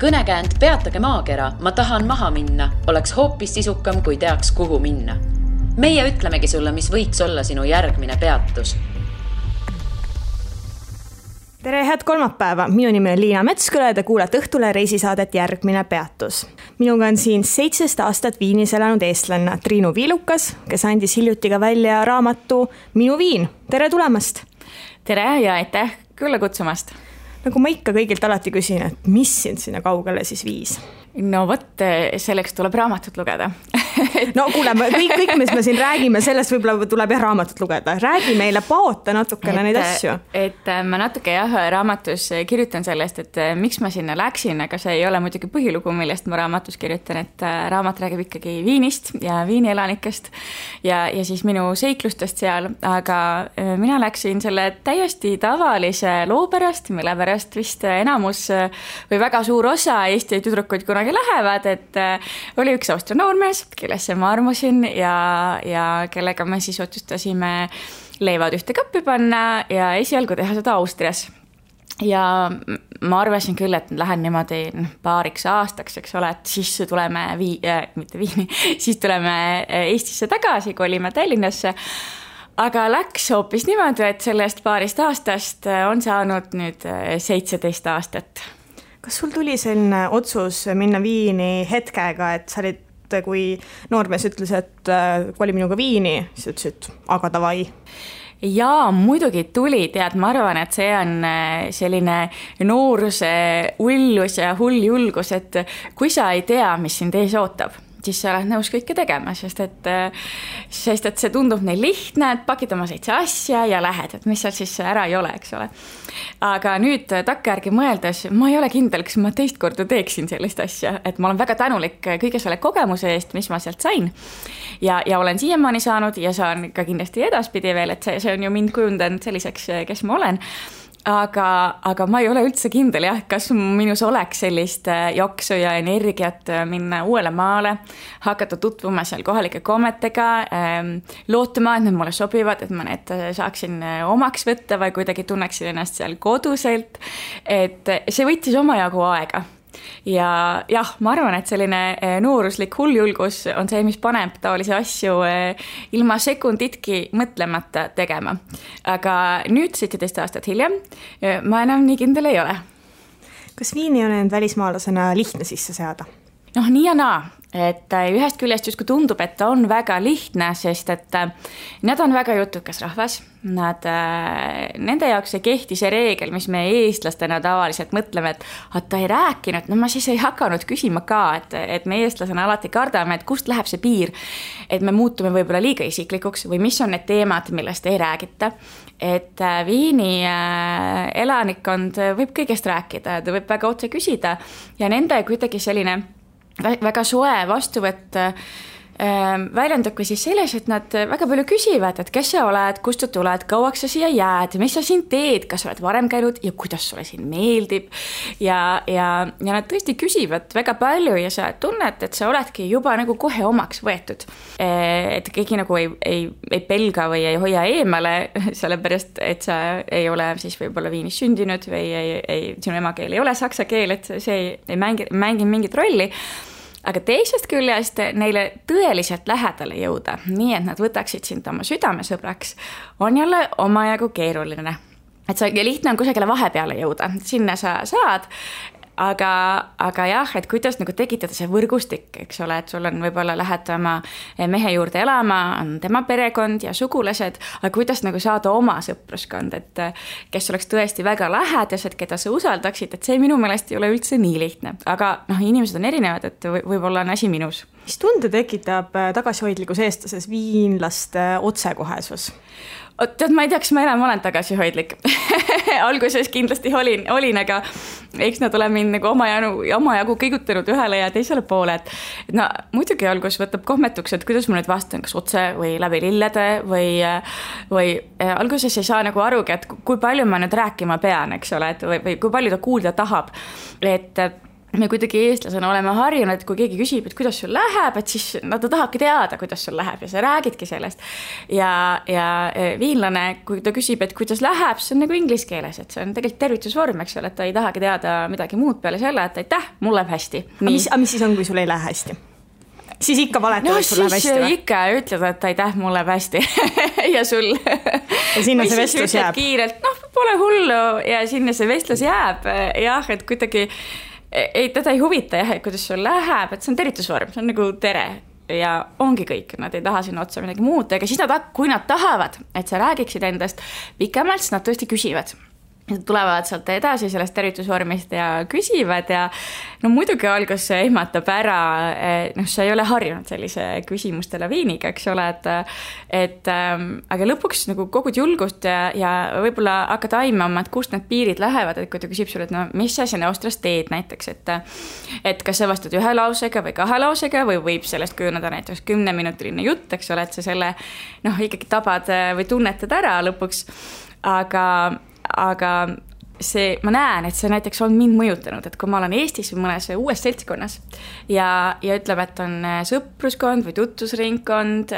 Kõnekäänd Peatage maakera, ma tahan maha minna, oleks hoopis sisukam, kui teaks, kuhu minna. Meie ütlemegi sulle, mis võiks olla sinu järgmine peatus. Tere, head kolmapäeva! Minu nimi on Liina Metsküla ja te kuulete Õhtule reisisaadet Järgmine peatus. Minuga on siin 17 aastat Viinis elanud eestlanna Triinu Viilukas, kes andis hiljuti ka välja raamatu Minu Viin. Tere tulemast! Tere ja aitäh külla kutsumast! Nagu ma ikka kõigilt alati küsin, et mis sind sinna kaugele siis viis? No vot, selleks tuleb raamatut lugeda. No kuule, kõik, mis me siin räägime, sellest võib-olla tuleb raamatut lugeda. Räägi meile, paota natukene neid asju. Et ma natuke raamatus kirjutan sellest, et miks ma sinna läksin, aga see ei ole muidugi põhilugu, millest ma raamatus kirjutan, et raamat räägib ikkagi Viinist ja Viini elanikest ja siis minu seiklustest seal, aga mina läksin selle täiesti tavalise loo pärast, mille pärast vist enamus või väga suur osa Eesti tüdrukuid kunagi lähevad, et oli üks Austria noormees, kellesse ma armusin ja kellega me siis otsustasime leivad ühte kappi panna ja esialgu teha seda Austrias. Ja ma arvasin küll, et lähen niimoodi paariks aastaks, eks ole, et siis tuleme siis tuleme Eestisse tagasi, kolime Tallinnasse. Aga läks hoopis niimoodi, et sellest paarist aastast on saanud nüüd 17 aastat. Kas sul tuli selline otsus minna Viini hetkega, et sa olid, kui noormees ütles, et koli minuga Viini, siis ütlesid, aga davai? Jaa, muidugi tuli, tead, ma arvan, et see on selline nooruse ullus ja hull julgus, et kui sa ei tea, mis sind ees ootab, siis sa oled nõus kõike tegema, sest et see tundub neil lihtne, et pakid oma 7 asja ja lähed, et mis seal siis ära ei ole, eks ole. Aga nüüd takkajärgi mõeldes, ma ei ole kindel, kas ma teist korda teeksin sellist asja, et ma olen väga tänulik kõige selle kogemuse eest, mis ma sealt sain ja olen siiamaani saanud ja saan ka kindlasti edaspidi veel, et see on ju mind kujundanud selliseks, kes ma olen. Aga ma ei ole üldse kindel, kas minus oleks sellist jaksu ja energiat minna uuele maale, hakata tutvuma seal kohalike kommetega, lootuma, et need mulle sobivad, et ma need saaksin omaks võtta või kuidagi tunneksin ennast seal koduselt, et see võttis omajagu aega. Ja jah, ma arvan, et selline nooruslik hulljulgus on see, mis paneb taolisi asju ilma sekunditki mõtlemata tegema. Aga nüüd 17 aastat hiljem ma enam nii kindel ei ole. Kas Viini on end välismaalasena lihtne sisse seada? Noh, nii ja naa. Et ühest küljest justkui tundub, et ta on väga lihtne, sest et nad on väga jutukas rahvas. Nende jaoks ei kehti see reegel, mis me eestlastena tavaliselt mõtleme, et ta ei rääkinud, no ma siis ei hakanud küsima ka, et me eestlasena alati kardame, et kust läheb see piir, et me muutume võib-olla liiga isiklikuks või mis on need teemad, millest ei räägita. Et Viini elanikkond võib kõigest rääkida, ta võib väga otse küsida ja nende kuidagi selline väga soe vastuvõtt väljendubki siis selles, et nad väga palju küsivad, et kes sa oled, kust sa tuled, kauaks sa siia jääd, mis sa siin teed, kas sa oled varem käinud ja kuidas sulle siin meeldib. Ja nad tõesti küsivad väga palju ja sa tunned, et sa oledki juba nagu kohe omaks võetud. Et keegi nagu ei pelga või ei hoia eemale, sellepärast, et sa ei ole siis võib-olla Viinis sündinud või sinu emakeel ei ole saksa keel, et see ei mängi mingit rolli. Aga teisest küljest neile tõeliselt lähedale jõuda, nii et nad võtaksid sind oma südamesõbraks, on jälle omajagu keeruline. Et see lihtne on kusagile vahepeale jõuda, sinna sa saad, aga jah, et kuidas nagu tekitada see võrgustik, eks ole, et sul on võib-olla lähed oma mehe juurde elama, on tema perekond ja sugulased, aga kuidas nagu saada oma sõpruskond, et kes oleks tõesti väga lähedased, keda sa usaldaksid, et see minu meelest ei ole üldse nii lihtne, aga inimesed on erinevad, et võib-olla on asi minus. Mis tunde tekitab tagasihoidlikus eestlases viinlaste otsekohesus? Tead, ma ei tea, kas ma enam olen tagasihoidlik. Alguses kindlasti olin, aga eks nad ole mind nagu omajagu kõigutanud ühele ja teisele poole. Et muidugi algus võtab kohmetuks, et kuidas ma nüüd vastan, kas otse või läbi lillede või alguses ei saa nagu arugi, et kui palju ma nüüd rääkima pean, eks ole, või kui palju ta kuulda tahab. Et me kuidagi eestlasena oleme harjunud, et kui keegi küsib, et kuidas sul läheb, et siis ta tahabki teada, kuidas sul läheb ja sa räägidki sellest. Ja viinlane, kui ta küsib, et kuidas läheb, see on nagu inglise keeles, et see on tegelikult tervitusvorm, eks ole, et ta ei tahagi teada midagi muud peale selle, et aitäh, mul läheb hästi. Mis siis on, kui sul ei lähe hästi? Siis ikka valetad, et sul läheb hästi või? Ikka ütled, et aitäh, mul läheb hästi ja sul. Ja sinna see vestlus jääb. Kiirelt, pole hullu ja sinna see vestlus jääb. Jah, et kuidagi teda ei huvita, et kuidas sul läheb, et see on tervitusvorm, see on nagu tere ja ongi kõik, nad ei taha sinna otsa midagi muud, aga siis kui nad tahavad, et sa räägiksid endast pikemalt, siis nad tõesti küsivad. Tulevad sealt edasi sellest tervitusvormist ja küsivad ja muidugi algus see ehmatab ära, sa ei ole harjunud sellise küsimuste laviiniga, eks ole, aga lõpuks nagu kogud julgust ja võib-olla hakkad aimama, et kust need piirid lähevad, et kui ta küsib sulle, et mis sa siin Austrias teed näiteks, et kas sa vastad 1 lausega või 2 lausega või võib sellest kujuneda näiteks 10-minutiline jutt, eks ole, et sa selle ikkagi tabad või tunnetad ära lõpuks, aga see, ma näen, et see näiteks on mind mõjutanud, et kui ma olen Eestis või mõnes uues seltskonnas ja ütleme, et on sõpruskond või tutvusringkond,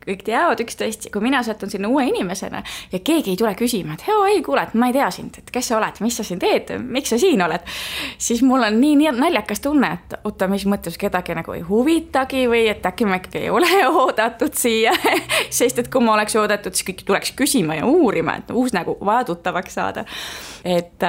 kõik teavad üksteist, kui mina satun sinna uue inimesena ja keegi ei tule küsima, et ei kuule, et ma ei tea sind, et kes sa oled, mis sa siin teed, miks sa siin oled, siis mul on nii naljakas tunne, et oota, mis mõttes kedagi nagu ei huvitagi või et äkki ma ikkagi ei ole oodatud siia, sest et kui ma oleks oodatud, siis kõik tuleks küsima ja uurima, et uus nagu vaja tuttavaks saada. Et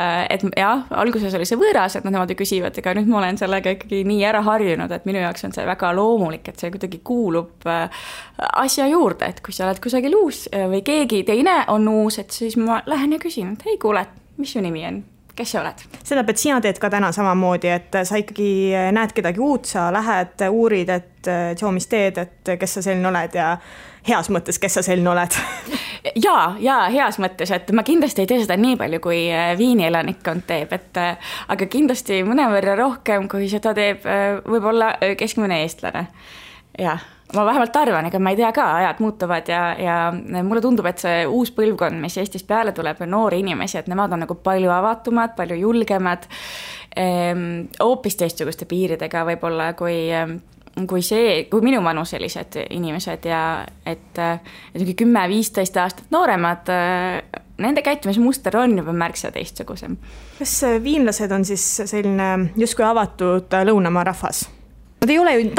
jah, alguses oli see võõras, et nad niimoodi küsivad, aga nüüd ma olen sellega ikkagi nii ära harjunud, et minu jaoks on see väga loomulik, et see kuidagi kuulub asja juurde, et kui sa oled kusagil uus või keegi teine on uus, et siis ma lähen ja küsin, et kuule, mis su nimi on? Kes sa oled? Seda, et sina teed ka täna samamoodi, et sa ikkagi näed kedagi uut, sa lähed, uurid, et mis teed, et kes sa selline oled ja heas mõttes, kes sa selline oled? Ja heas mõttes, et ma kindlasti ei tee seda nii palju, kui Viini elanikkond teeb, aga kindlasti mõnevõrra rohkem, kui seda teeb võib-olla keskmine eestlane. Ja ma vähemalt arvan, ega ma ei tea ka, ajad muutuvad ja mulle tundub, et see uus põlvkond, mis Eestis peale tuleb, noori inimesi, et nemad on nagu palju avatumad, palju julgemad, hoopis teistsuguste piiridega võib-olla kui minu vanuselised inimesed ja et 10-15 aastat nooremad, nende käitumismuster on juba märksa teistsugusem. Kas viinlased on siis selline justkui avatud lõunamaa rahvas? Ta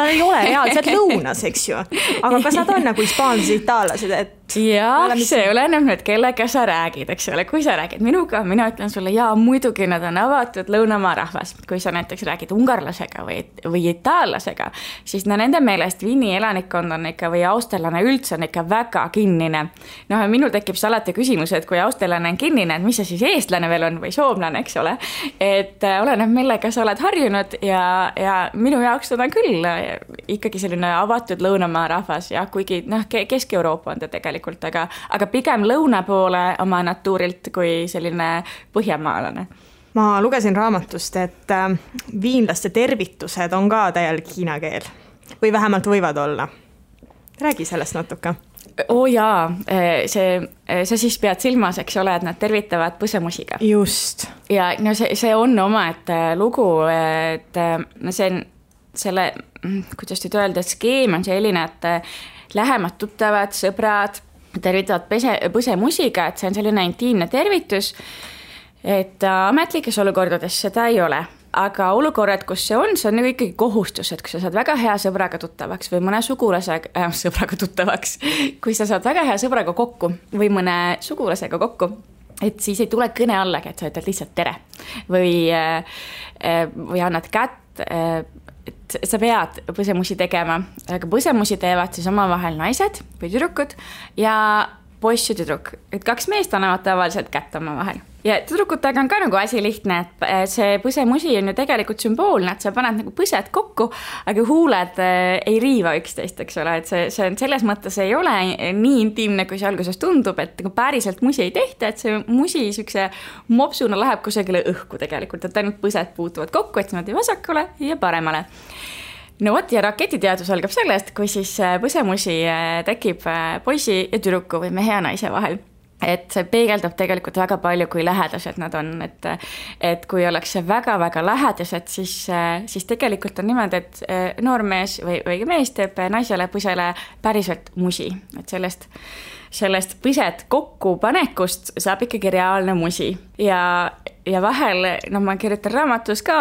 ei ole reaalselt lõunas, eks ju, aga kas nad on nagu hispaanlased, itaallased, et jah, see oleneb nüüd, kellega sa räägid, eks ole, kui sa räägid minuga, mina ütlen sulle, muidugi nad on avatud lõunamaa rahvas, kui sa näiteks räägid ungarlasega või itaallasega, siis nende meelest Viini elanikkond on ikka või austerlane üldse on ikka väga kinnine. Minul tekib see alati küsimus, et kui austerlane on kinnine, et mis see siis eestlane veel on või soomlane, eks ole, et oleneb millega sa oled harjunud ja minu jaoks seda küll ikkagi selline avatud lõunamaa rahvas ja kuigi Kesk-Euroopa on ta tegelikult, aga pigem lõuna poole oma natuurilt kui selline põhjamaalane. Ma lugesin raamatust, et viinlaste tervitused on ka täielik hiina keel või vähemalt võivad olla. Räägi sellest natuke. Jaa, sa siis pead silmas, eks ole, et nad tervitavad põsemusiga. Just. Ja see on oma lugu, et see on selle, kuidas nüüd öelda, et skeem on selline, et lähemad tuttavad, sõbrad tervitavad põsemusiga, et see on selline intiimne tervitus, et ametlikes olukordades seda ei ole. Aga olukorrad, kus see on nagu ikkagi kohustus, et kui sa saad väga hea sõbraga tuttavaks või mõne sõbraga tuttavaks, kui sa saad väga hea sõbraga kokku või mõne sugulasega kokku, et siis ei tule kõne allagi, et sa ütled lihtsalt tere või annad kätt, et sa pead põsemusi tegema, aga põsemusi teevad siis omavahel naised või tüdrukud ja poiss ja tüdruk, et 2 meest annavad tavaliselt kätt omavahel. Ja tüdrukutega on ka nagu asi lihtne, et see põsemusi on ju tegelikult sümboolne, et sa paned nagu põsed kokku, aga huuled ei riiva üksteist, eks ole, et see on selles mõttes ei ole nii intiimne, kui see alguses tundub, et päriselt musi ei tehta, et see musi sükse mopsuna läheb kusagile õhku tegelikult, et ainult põsed puutuvad kokku, et niimoodi vasakule ja paremale. No vot, ja raketiteadus algab sellest, kui siis põsemusi tekib poisi ja tüdruku või mehe ja naise vahel. et see peegeldab tegelikult väga palju, kui lähedased nad on, et kui ollakse väga-väga lähedased, siis tegelikult on niimoodi, et noormees või mees teeb naisele põsele päriselt musi, et sellest põsed kokkupanekust saab ikkagi reaalne musi ja vahel, ma kirjutan raamatus ka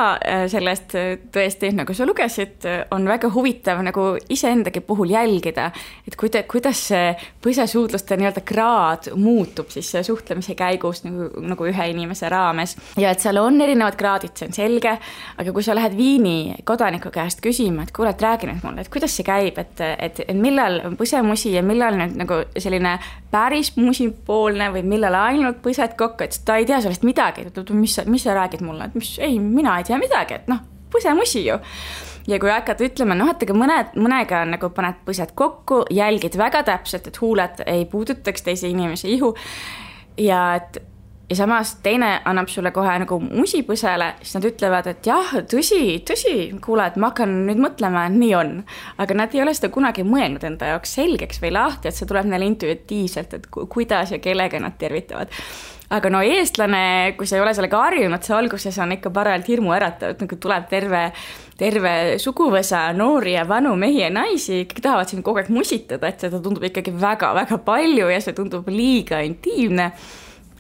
sellest tõesti, nagu sa lugesid, on väga huvitav nagu iseendagi puhul jälgida, et kuidas see põsesuudluste nii-öelda kraad muutub siis suhtlemise käigus nagu ühe inimese raames. Ja et seal on erinevad kraadid, see on selge, aga kui sa lähed Viini kodaniku käest küsima, et kuule, et räägi nüüd mulle, et kuidas see käib, et millal põsemusi ja millal nüüd nagu selline päris musipoolne või millal ainult põsed kokku, et ta ei tea sellest midagi, mis sa räägid mulle, et mina ei tea midagi, et põsemusi ju. Ja kui hakkad ütlema, et aga mõnega nagu paned põsed kokku, jälgid väga täpselt, et huuled ei puudutaks teise inimese ihu ja samas teine annab sulle kohe nagu musipõsele, siis nad ütlevad, et jah, tõsi, kuule, et ma hakkan nüüd mõtlema, et nii on. Aga nad ei ole seda kunagi mõelnud enda jaoks selgeks või lahti, et see tuleb neile intuitiivselt, et kuidas ja kellega nad tervitavad. Aga eestlane, kui sa ei ole sellega harjunud, see alguses on ikka parajalt hirmu äratav, et nagu tuleb terve suguvõsa noori ja vanu mehi ja naisi, kõik tahavad siin kogu aeg musitada, et seda tundub ikkagi väga-väga palju ja see tundub liiga intiimne.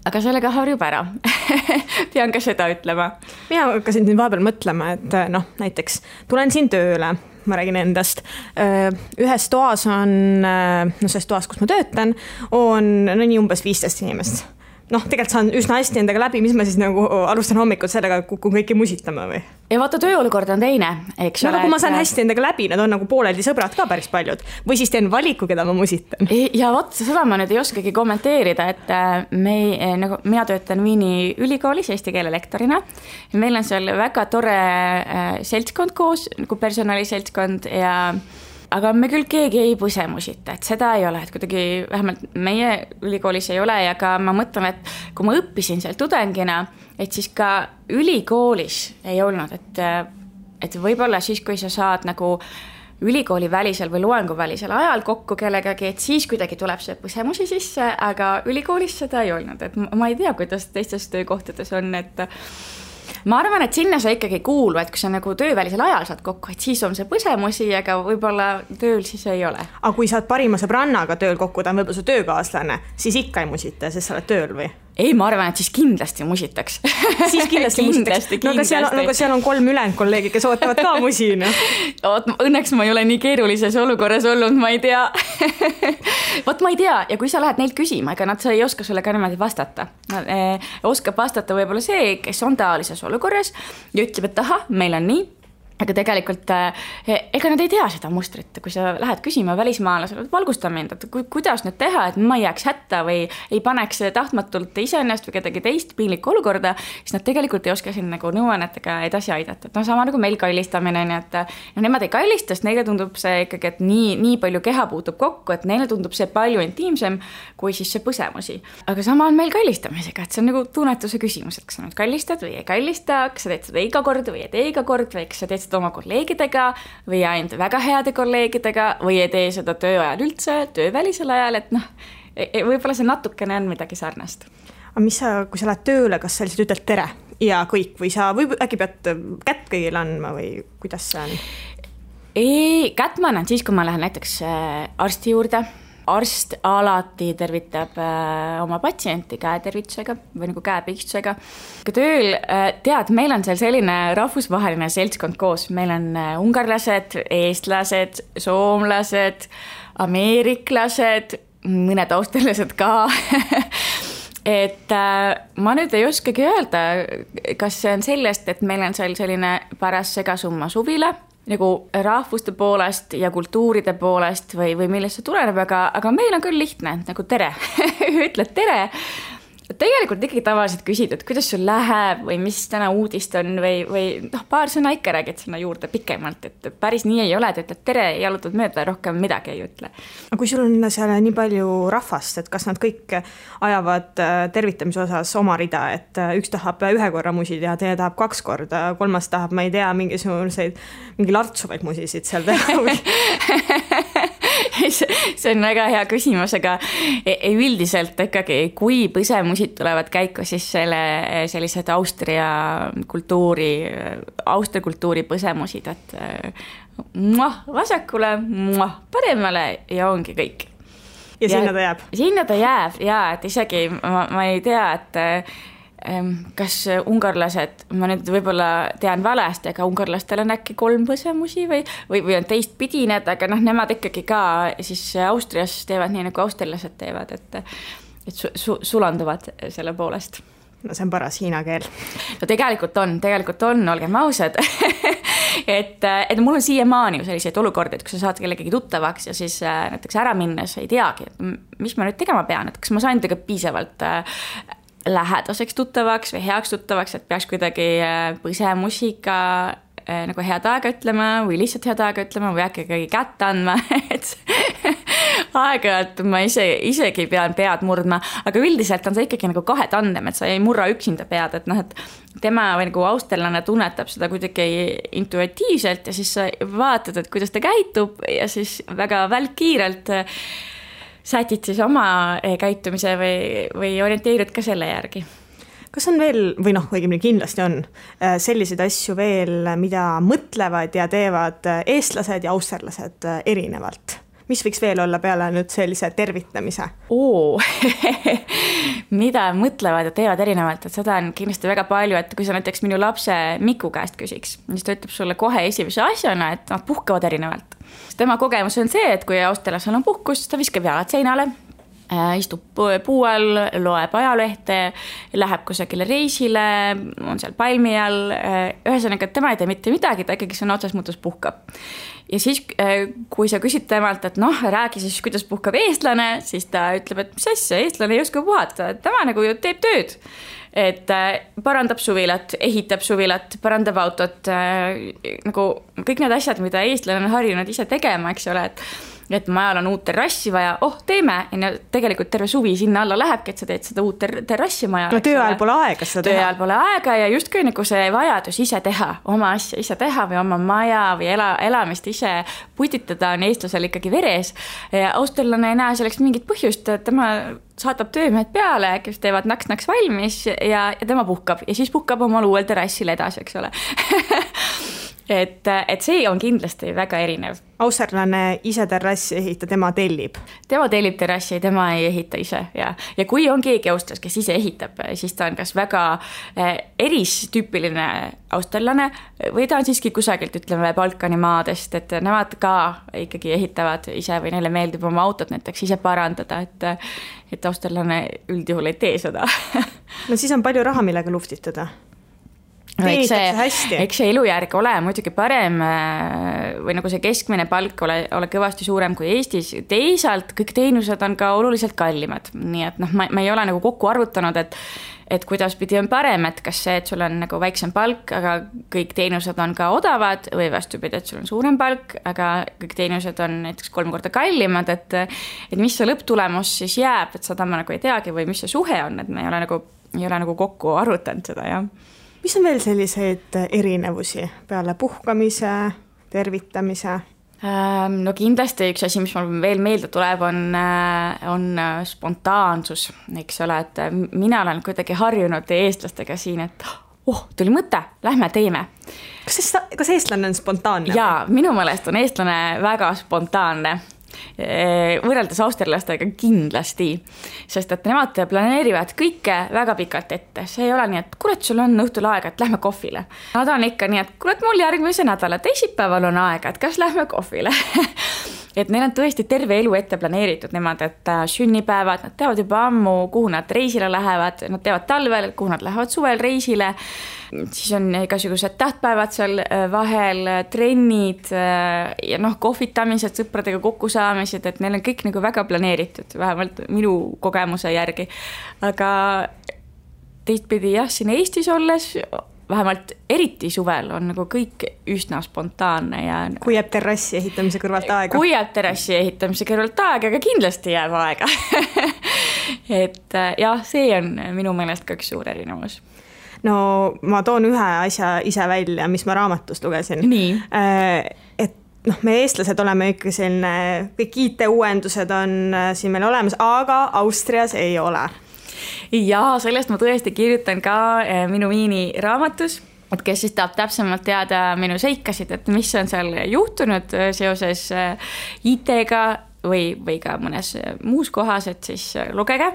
Aga sellega harjub ära. Pean ka seda ütlema. Mina hakkasin nüüd vahepeal mõtlema, et näiteks tulen siin tööle, ma räägin endast. Ühes toas on, selles toas, kus ma töötan, on nii umbes 15 inimest. Tegelikult saan üsna hästi endaga läbi, mis ma siis nagu alustan hommikul sellega, kui kõiki musitama või? Ja vaata, tööolukord on teine, eks ole. Kui ma saan hästi endaga läbi, nad on nagu pooleldi sõbrad ka päris paljud. Või siis teen valiku, keda ma musitan. Ja seda ma nüüd ei oskagi kommenteerida, et mina töötan Viini ülikoolis eesti keele lektorina. Meil on seal väga tore seltskond koos, nagu personaliseltskond aga me küll keegi ei põsemusita, et seda ei ole, et kuidagi vähemalt meie ülikoolis ei ole ja ka ma mõtlen, et kui ma õppisin seal tudengina, et siis ka ülikoolis ei olnud, et võib-olla siis, kui sa saad nagu ülikooli välisel või loengu välisel ajal kokku kellegagi, et siis kuidagi tuleb see põsemusi sisse, aga ülikoolis seda ei olnud, et ma ei tea, kuidas teistes töökohtades on, et ma arvan, et sinna sa ikkagi kuulu, et kui sa nagu töövälisel ajal saad kokku, et siis on see põsemusi, aga võib-olla tööl siis ei ole. Aga kui saad parima sõbrannaga tööl kokku, ta on võib-olla su töökaaslane, siis ikka ei musita, sest sa oled tööl või? Ei, ma arvan, et siis kindlasti musitaks. Siis kindlasti musitaks. Aga seal on 3 ülejäänud kolleegi, kes ootavad ka musina. Õnneks ma ei ole nii keerulises olukorras olnud, ma ei tea. Vot ma ei tea, ja kui sa lähed neilt küsima, ega nad ei oska sulle ka niimoodi vastata. Oskab vastata võib-olla see, kes on taolises olukorras ja ütleb, et aha, meil on nii. Aga tegelikult, ega nad ei tea seda mustrit, kui sa lähed küsima välismaalasele, valgusta mind, et kuidas nüüd teha, et ma ei jääks hätta või ei paneks tahtmatult iseennast või kedagi teist piinlikku olukorda, siis nad tegelikult ei oska siin nagu nõuannetega edasi aidata. Et sama nagu meil kallistamine, et nemad ei kallista, sest neile tundub see ikkagi, et nii palju keha puutub kokku, et neile tundub see palju intiimsem kui siis see põsemusi. Aga sama on meil kallistamisega, et see on nagu tunnetuse küsimus, et kas sa nüüd kallistad või ei kallista, kas sa teed seda iga kord või ei tee iga kord või kas sa teed seda oma kolleegidega või ainult väga heade kolleegidega või ei tee seda tööajal üldse, töövälisel ajal, et võib-olla see natukene on midagi sarnast. Aga mis kui sa lähed tööle, kas sa lihtsalt ütled tere ja kõik või sa äkki pead kätt kõigile andma või kuidas see on? Ei, kätt ma annan siis, kui ma lähen näiteks arsti juurde. Arst alati tervitab oma patsienti käetervitusega või nagu käepigistusega. Tööl, meil on seal selline rahvusvaheline seltskond koos. Meil on ungarlased, eestlased, soomlased, ameeriklased, mõned austrlased ka. Et ma nüüd ei oskagi öelda, kas see on sellest, et meil on seal selline paras segasumma suvila, nagu rahvuste poolest ja kultuuride poolest või millest see tuleneb, aga meil on küll lihtne, nagu tere, ütled tere. Tegelikult ikkagi tavaliselt küsid, et kuidas sul läheb või mis täna uudist on või paar sõna ikka räägid sinna juurde pikemalt, et päris nii ei ole, et ütled tere, jalutad mööda, rohkem midagi ei ütle. Aga kui sul on seal nii palju rahvast, et kas nad kõik ajavad tervitamise osas oma rida, et üks tahab 1 korra musi teha, teine tahab 2 korda, 3 tahab, ma ei tea, mingi lartsuvaid musisid seal teha? see on väga hea küsimus, aga üldiselt ikkagi, kui põsemusid tulevad käiku, siis sellised Austria kultuuri põsemusid, et vasakule, paremale ja ongi kõik. Ja sinna ta jääb? Sinna ta jääb, jaa, et isegi ma ei tea, et kas ungarlased, ma nüüd võib-olla tean valesti, aga ungarlastel on äkki 3 põsemusi või on teistpidi need, aga nemad ikkagi ka siis Austrias teevad nii, nagu austerlased teevad, et sulanduvad selle poolest. No see on paras hiina keel. No tegelikult on, olgem ausad. et mul on siiamaani ju selliseid olukordi, et kui sa saad kellegagi tuttavaks ja siis näiteks ära minnes ei teagi, et mis ma nüüd tegema pean, et kas ma sain tega piisavalt lähedaseks tuttavaks või heaks tuttavaks, et peaks kuidagi põsemusiga nagu head aega ütlema või lihtsalt head aega ütlema või äkki kätt andma, et aeg-ajalt ma isegi pean pead murdma, aga üldiselt on see ikkagi nagu kahetandem, et sa ei murra üksinda pead, et et tema või nagu austerlane tunnetab seda kuidagi intuitiivselt ja siis sa vaatad, et kuidas ta käitub ja siis väga välkkiirelt sätid siis oma käitumise või orienteerid ka selle järgi. Kas on veel, või õigemini kindlasti on selliseid asju veel, mida mõtlevad ja teevad eestlased ja austerlased erinevalt? Mis võiks veel olla peale nüüd sellise tervitamise? Mida mõtlevad ja teevad erinevalt, et seda on kindlasti väga palju, et kui sa näiteks minu lapse Miku käest küsiks, siis ta ütleb sulle kohe esimese asjana, et nad puhkavad erinevalt. Tema kogemus on see, et kui austerlasel on puhkus, ta viskab jalad seinale, istub puu all, loeb ajalehte, läheb kusagile reisile, on seal palmi all, ühesõnaga, et tema ei tee mitte midagi, ta ikkagi sõna otsas mõttes puhkab. Ja siis, kui sa küsid temalt, et räägi siis, kuidas puhkab eestlane, siis ta ütleb, et mis asja, eestlane ei oska puhata, tema nagu ju teeb tööd. Et parandab suvilat, ehitab suvilat, parandab autot, nagu kõik need asjad, mida eestlane on harjunud ise tegema, eks ole, et majal on uut terrassi vaja, teeme, ja tegelikult terve suvi sinna alla lähebki, et sa teed seda uut terrassi majal. No tööajal pole aega seda teha. Tööajal pole aega ja justkui nagu see vajadus ise teha, oma asja ise teha või oma maja või elamist ise putitada on eestlasel ikkagi veres. Austerlane ei näe selleks mingit põhjust, et tema saatab töömehed peale, kes teevad naks-naks valmis ja tema puhkab ja siis puhkab omal uuel terrassil edasi, eks ole. et see on kindlasti väga erinev. Austerlane ise terrassi ehita, tema tellib? Tema tellib terrassi, tema ei ehita ise. Ja kui on keegi austlas, kes ise ehitab, siis ta on kas väga eristüüpiline austerlane või ta on siiski kusagilt, ütleme, Balkani maadest, et nemad ka ikkagi ehitavad ise või neile meeldib oma autot näiteks ise parandada, et austerlane üldjuhul ei tee seda. No siis on palju raha, millega luftitada. No, eks see elujärg ole muidugi parem või nagu see keskmine palk ole kõvasti suurem kui Eestis. Teisalt kõik teenused on ka oluliselt kallimad. Nii et ma ei ole nagu kokku arvutanud, et kuidas pidi on parem, et kas see, et sul on nagu väiksem palk, aga kõik teenused on ka odavad või vastupidi, et sul on suurem palk, aga kõik teenused on näiteks 3 korda kallimad, et mis see lõpptulemus siis jääb, et seda ma nagu ei teagi või mis see suhe on, et me ei ole nagu kokku arvutanud seda, jah. Mis on veel selliseid erinevusi peale puhkamise, tervitamise? No kindlasti üks asi, mis mul veel meelde tuleb, on spontaansus, eks ole, et mina olen kuidagi harjunud eestlastega siin, et tuli mõte, lähme teeme. Kas eestlane on spontaanne? Jaa, minu meelest on eestlane väga spontaanne. Võrreldes austerlastega kindlasti, sest et nemad planeerivad kõike väga pikalt ette. See ei ole nii, et kurat, sul on õhtul aega, et lähme kohvile. Nad on ikka nii, et kurat, mul järgmise nädala teisipäeval on aega, et kas lähme kohvile. Et neil on tõesti terve elu ette planeeritud nemad, et sünnipäevad, nad teavad juba ammu, kuhu nad reisile lähevad, nad teavad talvel, kuhu nad lähevad suvel reisile, siis on igasugused tähtpäevad seal vahel, trennid ja kohvitamised, sõpradega kokkusaamised, et neil on kõik nagu väga planeeritud, vähemalt minu kogemuse järgi. Aga teistpidi jah, siin Eestis olles vähemalt eriti suvel on nagu kõik üsna spontaanne. Ja kui jääb terrassi ehitamise kõrvalt aega? Kui jääb terrassi ehitamise kõrvalt aega, aga kindlasti jääb aega. Et jah, see on minu meelest ka üks suur erinevus. No ma toon ühe asja ise välja, mis ma raamatust lugesin. Nii. Et me eestlased oleme ikka selline, kõik IT-uuendused on siin meil olemas, aga Austrias ei ole. Ja sellest ma tõesti kirjutan ka minu Viini raamatus, et kes siis tahab täpsemalt teada minu seikasid, et mis on seal juhtunud seoses IT-ga või ka mõnes muus kohas, et siis lugege.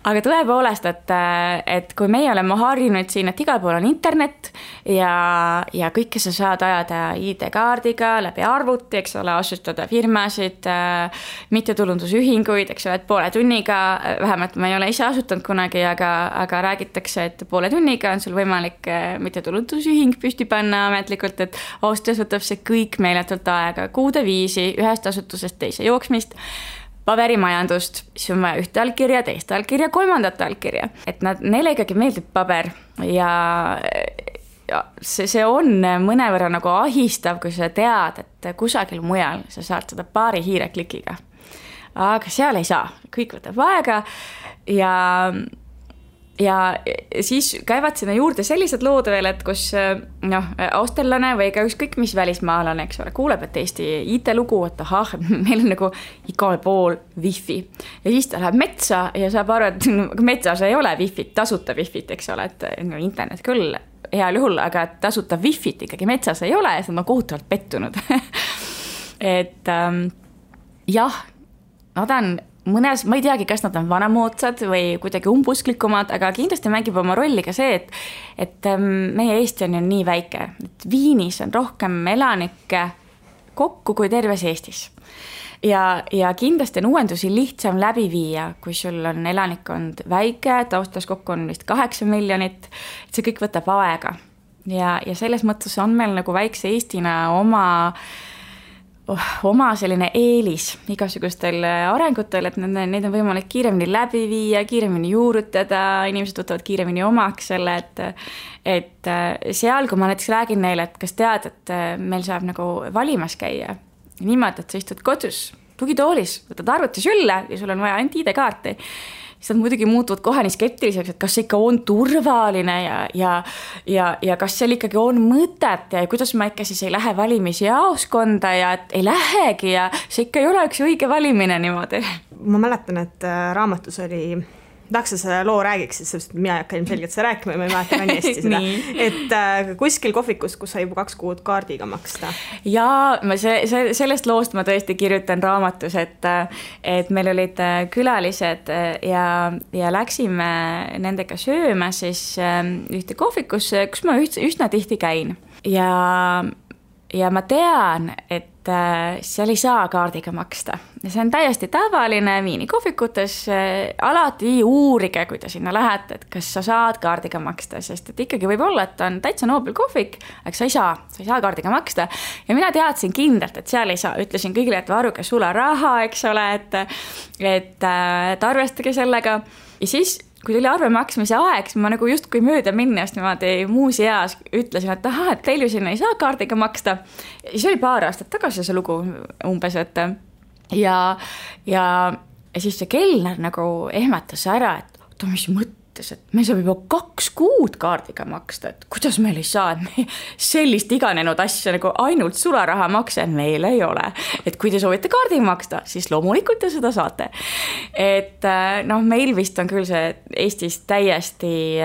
Aga tõepoolest, et kui meie oleme harjunud siin, et igal pool on internet ja kõike sa saad ajada ID-kaardiga läbi arvuti, eks ole, asustada firmasid, mittetulundusühinguid, eks ole, et poole tunniga, vähemalt ma ei ole ise asutanud kunagi, aga räägitakse, et poole tunniga on sul võimalik mittetulundusühing püsti panna ametlikult, et Austrias võtab see kõik meeletult aega, kuude viisi ühest asutusest teise jooksmist, paberimajandust, siis on vaja ühte allkirja, teist allkirja, kolmandat allkirja. Et neile ikkagi meeldib paber ja see on mõnevõrra nagu ahistav, kui sa tead, et kusagil mujal sa saad seda paari hiireklikiga. Aga seal ei saa, kõik võtab aega ja siis käivad sinna juurde sellised lood veel, et kus austerlane või ka ükskõik mis välismaalane, eks ole, kuuleb, et Eesti IT-lugu, et meil on nagu igal pool wifi. Ja siis ta läheb metsa ja saab aru, et metsas ei ole wifit, tasuta wifit, eks ole, et internet küll heal juhul, aga tasuta wifit ikkagi metsas ei ole ja see on kohutavalt pettunud. Et jah, nad on mõnes, ma ei teagi, kas nad on vanamoodsad või kuidagi umbusklikumad, aga kindlasti mängib oma rolli ka see, et meie Eesti on ju nii väike, et Viinis on rohkem elanikke kokku kui terves Eestis. Ja kindlasti on uuendusi lihtsam läbi viia, kui sul on elanikkond väike, taustas kokku on vist 8 miljonit, et see kõik võtab aega. Ja selles mõttes on meil nagu väikse Eestina oma selline eelis igasugustel arengutel, et neid on võimalik kiiremini läbi viia, kiiremini juurutada, inimesed võtavad kiiremini omaks selle, et seal, kui ma näiteks räägin neile, et kas tead, et meil saab nagu valimas käia niimoodi, et sa istud kodus tugitoolis, võtad arvuti sülle ja sul on vaja ainult ID-kaarti, siis nad muidugi muutuvad kohe nii skeptiliseks, et kas see ikka on turvaline ja kas seal ikkagi on mõtet ja kuidas ma ikka siis ei lähe valimisjaoskonda ja et ei lähegi ja see ikka ei ole üks õige valimine niimoodi. Ma mäletan, et raamatus oli, tahaks sa selle loo räägiksid, sest mina ei hakka ilmselgelt seda rääkima ja ma ei mäleta väga hästi seda, et kuskil kohvikus, kus sai juba 2 kuud kaardiga maksta. Ja sellest loost ma tõesti kirjutan raamatus, et meil olid külalised ja läksime nendega sööma siis ühte kohvikusse, kus ma üsna tihti käin. Ja ma tean, et seal ei saa kaardiga maksta. Ja see on täiesti tavaline Viini kohvikutes. Alati uurige, kui te sinna lähete, et kas sa saad kaardiga maksta, sest et ikkagi võib olla, et on täitsa noobel kohvik, aga sa ei saa kaardiga maksta. Ja mina teadsin kindlalt, et seal ei saa. Ütlesin kõigile, et varuge sularaha, eks ole, et arvestage sellega. Ja siis kui tuli arve maksmise aeg, siis ma nagu just kui mööda minnes niimoodi muus eas ütlesin, et et teil ju sinna ei saa kaardiga maksta. Ja siis oli paar aastat tagasi see lugu umbes, et ja siis see kelner nagu ehmatas ära, et mis mõttes, et me saab juba 2 kuud kaardiga maksta, et kuidas meil ei saa, et me sellist iganenud asja nagu ainult sularaha makse meil ei ole. Et kui te soovite kaardiga maksta, siis loomulikult te seda saate. Et meil vist on küll see Eestis täiesti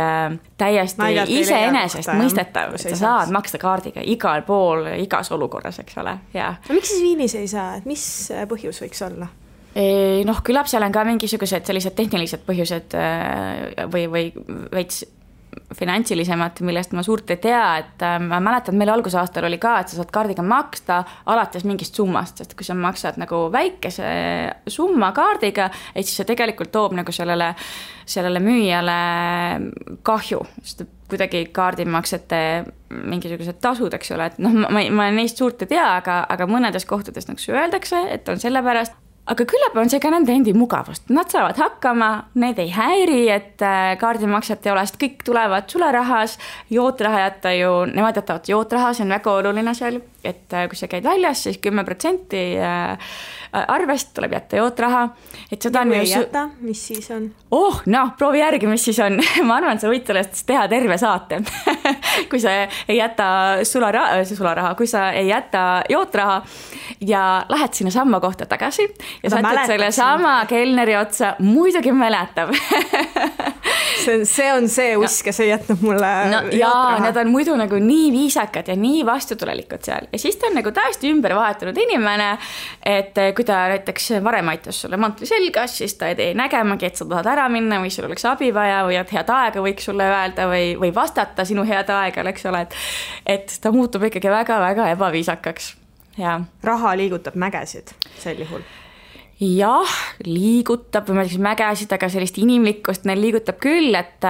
iseenesest mõistetav, et sa saad maksta kaardiga igal pool, igas olukorras, eks ole. Ja. Miks siis Viinis ei saa, et mis põhjus võiks olla? Küllap seal on ka mingisugused sellised tehnilised põhjused või veits finantsilisemad, millest ma suurt ei tea, et ma mäletan, meil algusaastal oli ka, et sa saad kaardiga maksta alates mingist summast, sest kui sa maksad nagu väikese summa kaardiga, et siis see tegelikult toob nagu sellele müüjale kahju, sest kuidagi kaardimaksete mingisugused tasud, eks ole, et ma neist suurt ei tea, aga mõnedes kohtades nagu öeldakse, et on sellepärast. Aga küllap on see ka nende endi mugavust. Nad saavad hakkama, need ei häiri, et kaardimakset ei ole, sest kõik tulevad sularahas, jootraha jätta ju, nemad jätavad jootraha, see on väga oluline seal, et kui sa käid väljas, siis 10% arvest tuleb jätta jootraha. Et seda ja kui ei jäta, mis siis on? Proovi järgi, mis siis on. Ma arvan, et sa võid sellest teha terve saate. kui sa ei jäta sularaha, kui sa ei jäta jootraha ja lähed sinna samma kohta tagasi ja satud selle sama kelneri otsa, muidugi mäletab. see on see usk, kes ei jätnud mulle jaa, nad on muidu nagu nii viisakad ja nii vastutulelikud seal. Ja siis ta on nagu täiesti ümber vahetunud inimene, et kui ta näiteks varem aitas sulle mantli selgas, siis ta ei tee nägemagi, et sa tahad ära minna või sul oleks abi vaja või et head aega võiks sulle öelda või vastata sinu head aega, eks ole, et ta muutub ikkagi väga-väga ebaviisakaks. Ja. Raha liigutab mägesid sel juhul. Jah, liigutab või ma ütleks mägesid, aga sellist inimlikkust neil liigutab küll, et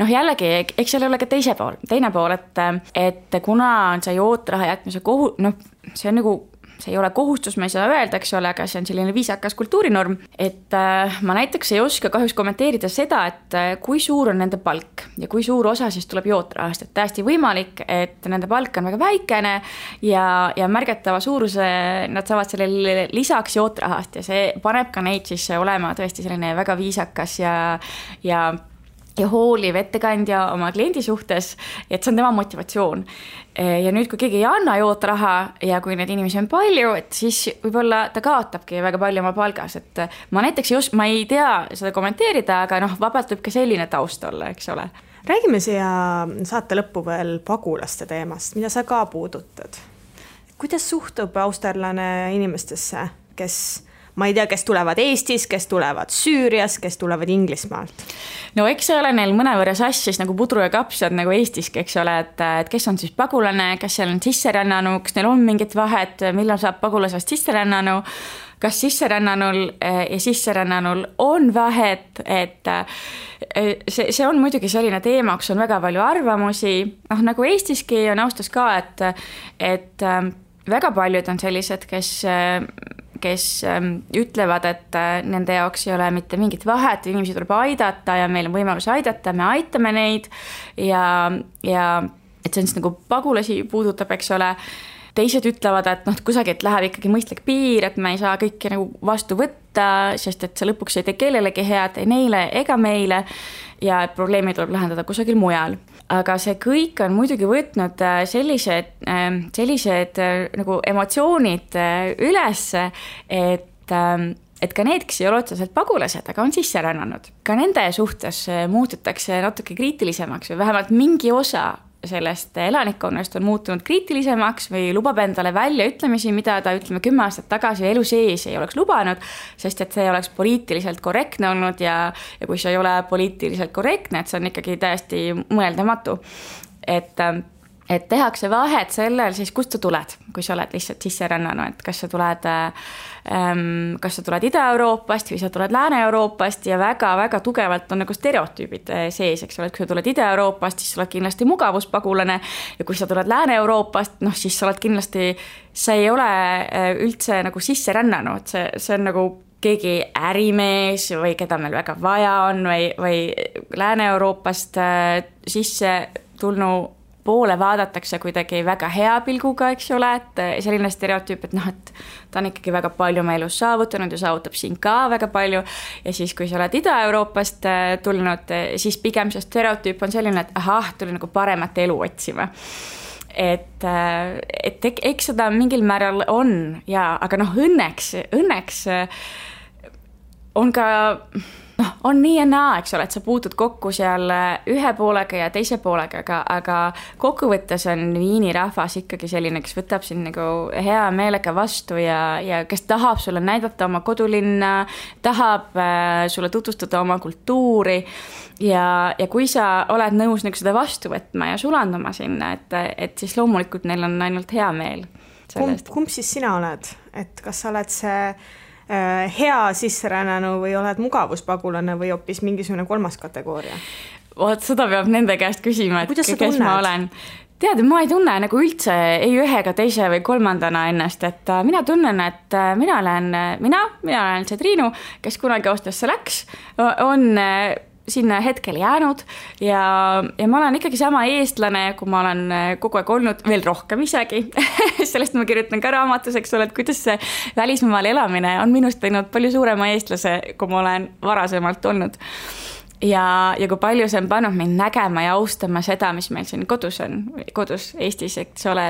jällegi, eks seal ole ka teine pool, et kuna on see jootraha jätmise see on nagu, see ei ole kohustus, ma ei saa öelda, eks ole, aga see on selline viisakas kultuurinorm, et ma näiteks ei oska kahjuks kommenteerida seda, et kui suur on nende palk ja kui suur osa siis tuleb jootrahast, et täiesti võimalik, et nende palk on väga väikene ja märgatava suuruse nad saavad sellele lisaks jootrahast ja see paneb ka neid siis olema tõesti selline väga viisakas ja hooliv ettekandja oma kliendi suhtes, et see on tema motivatsioon. Ja nüüd, kui keegi ei anna jootraha ja kui neid inimesi on palju, et siis võib-olla ta kaotabki väga palju oma palgas, et ma näiteks ma ei tea seda kommenteerida, aga vabalt võib ka selline taust olla, eks ole. Räägime siia saate lõppu veel pagulaste teemast, mida sa ka puudutad. Kuidas suhtub austerlane inimestesse, ma ei tea, kes tulevad Eestis, kes tulevad Süürias, kes tulevad Inglismaalt? No eks see ole neil mõnevõrra sassis nagu pudru ja kapsad nagu Eestiski, eks ole, et kes on siis pagulane, kas seal on sisserännanu, kas neil on mingit vahet, millal saab pagulasest sisserännanu, kas sisserännanul ja sisserännanul on vahet, et see on muidugi selline teema, kus on väga palju arvamusi, nagu Eestiski on austus ka, et väga paljud on sellised, kes ütlevad, et nende jaoks ei ole mitte mingit vahet, inimesi tuleb aidata ja meil on võimalus aidata, me aitame neid ja et see on siis nagu pagulasi puudutab, eks ole. Teised ütlevad, et kusagilt läheb ikkagi mõistlik piir, et me ei saa kõiki nagu vastu võtta, sest et see lõpuks ei tee kellelegi head, ei neile ega meile ja probleemi tuleb lahendada kusagil mujal. Aga see kõik on muidugi võtnud sellised nagu emotsioonid üles, et ka need, kes ei ole otseselt pagulased, aga on sisse rännanud. Ka nende suhtes muututakse natuke kriitilisemaks või vähemalt mingi osa sellest elanikkonnast on muutunud kriitilisemaks või lubab endale välja ütlemisi, mida ta 10 aastat tagasi elu sees ei oleks lubanud, sest et see oleks poliitiliselt korrektne olnud ja kui see ei ole poliitiliselt korrektne, et see on ikkagi täiesti mõeldamatu. Et tehakse vahet sellel, siis kust sa tuled, kui sa oled lihtsalt sisserännanu, et kas sa tuled Ida-Euroopast või sa tuled Lääne-Euroopast ja väga-väga tugevalt on nagu stereotüübid sees, eks ole, et kui sa tuled Ida-Euroopast, siis sa oled kindlasti mugavuspagulane ja kui sa tuled Lääne-Euroopast, siis sa oled kindlasti, sa ei ole üldse nagu sisserännanu, et see on nagu keegi ärimees või keda meil väga vaja on või Lääne-Euroopast sisse tulnu poole vaadatakse kuidagi väga hea pilguga, eks ole, et selline stereotüüp, et et ta on ikkagi väga palju oma elus saavutanud ja saavutab siin ka väga palju ja siis, kui sa oled Ida-Euroopast tulnud, siis pigem see stereotüüp on selline, et tuli nagu paremat elu otsima. Et eks seda mingil määral on aga õnneks on ka on nii ja naa, eks ole, et sa puutud kokku seal ühe poolega ja teise poolega, aga kokkuvõttes on Viini rahvas ikkagi selline, kes võtab sind nagu hea meelega vastu ja kes tahab sulle näidata oma kodulinna, tahab sulle tutvustada oma kultuuri ja kui sa oled nõus nagu seda vastu võtma ja sulanduma sinna, et siis loomulikult neil on ainult hea meel sellest. Kumb siis sina oled? Et kas sa oled see hea sisserännanu või oled mugavuspagulane või hoopis mingisugune kolmas kategooria? Seda peab nende käest küsima, et kes ma olen. Tead, ma ei tunne nagu üldse ei ühe ega teise või kolmandana ennast, et mina tunnen, et mina olen see Triinu, kes kunagi Austriasse läks, on sinna hetkel jäänud ja ma olen ikkagi sama eestlane, kui ma olen kogu aeg olnud, veel rohkem isegi. Sellest ma kirjutan ka raamatus, eks ole, et kuidas see välismaal elamine on minust teinud palju suurema eestlase, kui ma olen varasemalt olnud. ja kui palju see on pannud mind nägema ja austama seda, mis meil siin kodus Eestis, eks ole,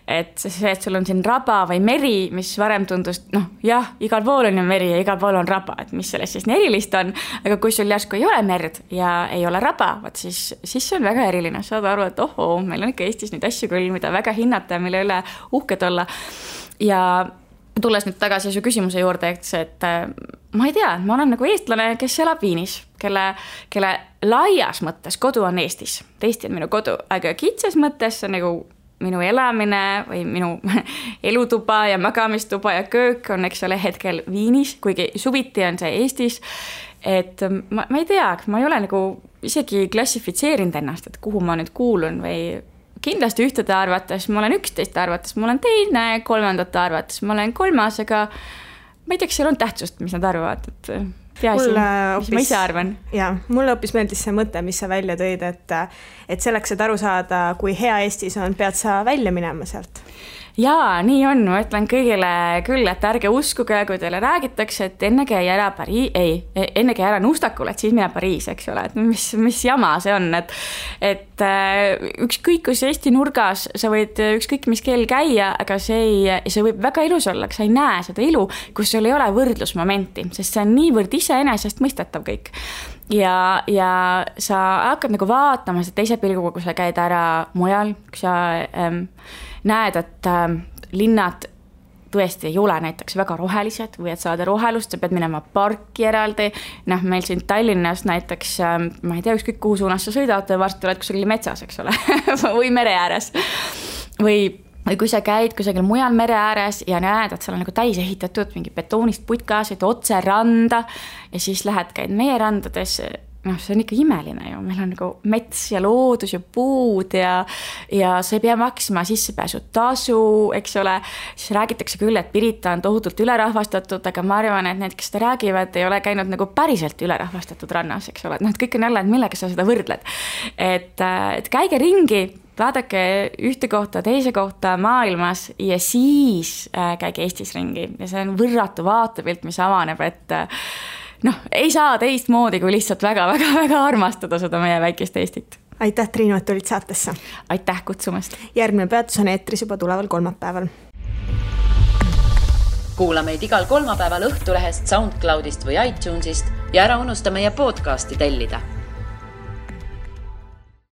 et see, et sul on siin raba või meri, mis varem tundus, jah, igal pool on ju meri ja igal pool on raba, et mis sellest siis nii erilist on, aga kui sul järsku ei ole merd ja ei ole raba, siis see on väga eriline, saad aru, et meil on ikka Eestis neid asju küll, mida väga hinnata ja mille üle uhked olla. Ja tulles nüüd tagasi su küsimuse juurde, et ma ei tea, ma olen nagu eestlane, kes elab Viinis, kelle laias mõttes kodu on Eestis. Eesti on minu kodu, aga kitsas mõttes on nagu minu elamine või minu elutuba ja magamistuba ja köök on, eks ole, hetkel Viinis, kuigi suviti on see Eestis. Et ma ei tea, ma ei ole nagu isegi klassifitseerinud ennast, et kuhu ma nüüd kuulun või kindlasti ühtede arvates, ma olen 11 arvates, ma olen teine, 3. arvates, ma olen 3, aga ma ei tea, kas seal on tähtsust, mis nad arvavad, et peaasi, mis ma ise arvan. Jaa, mulle hoopis meeldis see mõte, mis sa välja tõid, et selleks, et aru saada, kui hea Eestis on, pead sa välja minema sealt. Jaa, nii on, ma ütlen kõigile küll, et ärge uskuge, kui teile räägitakse, et enne käi ära Nustakul, et siis mine Pariis, eks ole, et mis jama see on, et ükskõik kus Eesti nurgas sa võid ükskõik mis keel käia, aga see võib väga ilus olla, aga sa ei näe seda ilu, kus sul ei ole võrdlusmomenti, sest see on niivõrd iseenesest mõistetav kõik. Ja sa hakkad nagu vaatama seda teise pilguga, kui sa käid ära mujal, kui sa näed, et linnad tõesti ei ole näiteks väga rohelised või et saada rohelust, sa pead minema parki eraldi. Meil siin Tallinnas näiteks, ma ei tea, ükskõik kuhu suunas sa sõidad, varsti oled kusagil metsas, eks ole, või mere ääres. Või kui sa käid kusagil mujal mere ääres ja näed, et seal on nagu täis ehitatud mingi betoonist putkasid otse randa ja siis käid meie randades, see on ikka imeline ju, meil on nagu mets ja loodus ja puud ja sa ei pea maksma sissepääsu tasu, eks ole, siis räägitakse küll, et Pirita on tohutult ülerahvastatud, aga ma arvan, et need, kes seda räägivad, ei ole käinud nagu päriselt ülerahvastatud rannas, eks ole, et kõik on jälle, et millega sa seda võrdled, et käige ringi, vaadake ühte kohta, teise kohta maailmas ja siis käige Eestis ringi ja see on võrratu vaatepilt, mis avaneb, et ei saa teist moodi, kui lihtsalt väga armastada seda meie väikest Eestit. Aitäh, Triinu, et tulid saatesse. Aitäh kutsumast. Järgmine peatus on eetris juba tuleval kolmapäeval. Kuula meid igal kolmapäeval Õhtulehest, SoundCloudist või iTunesist ja ära unusta meie podcasti tellida.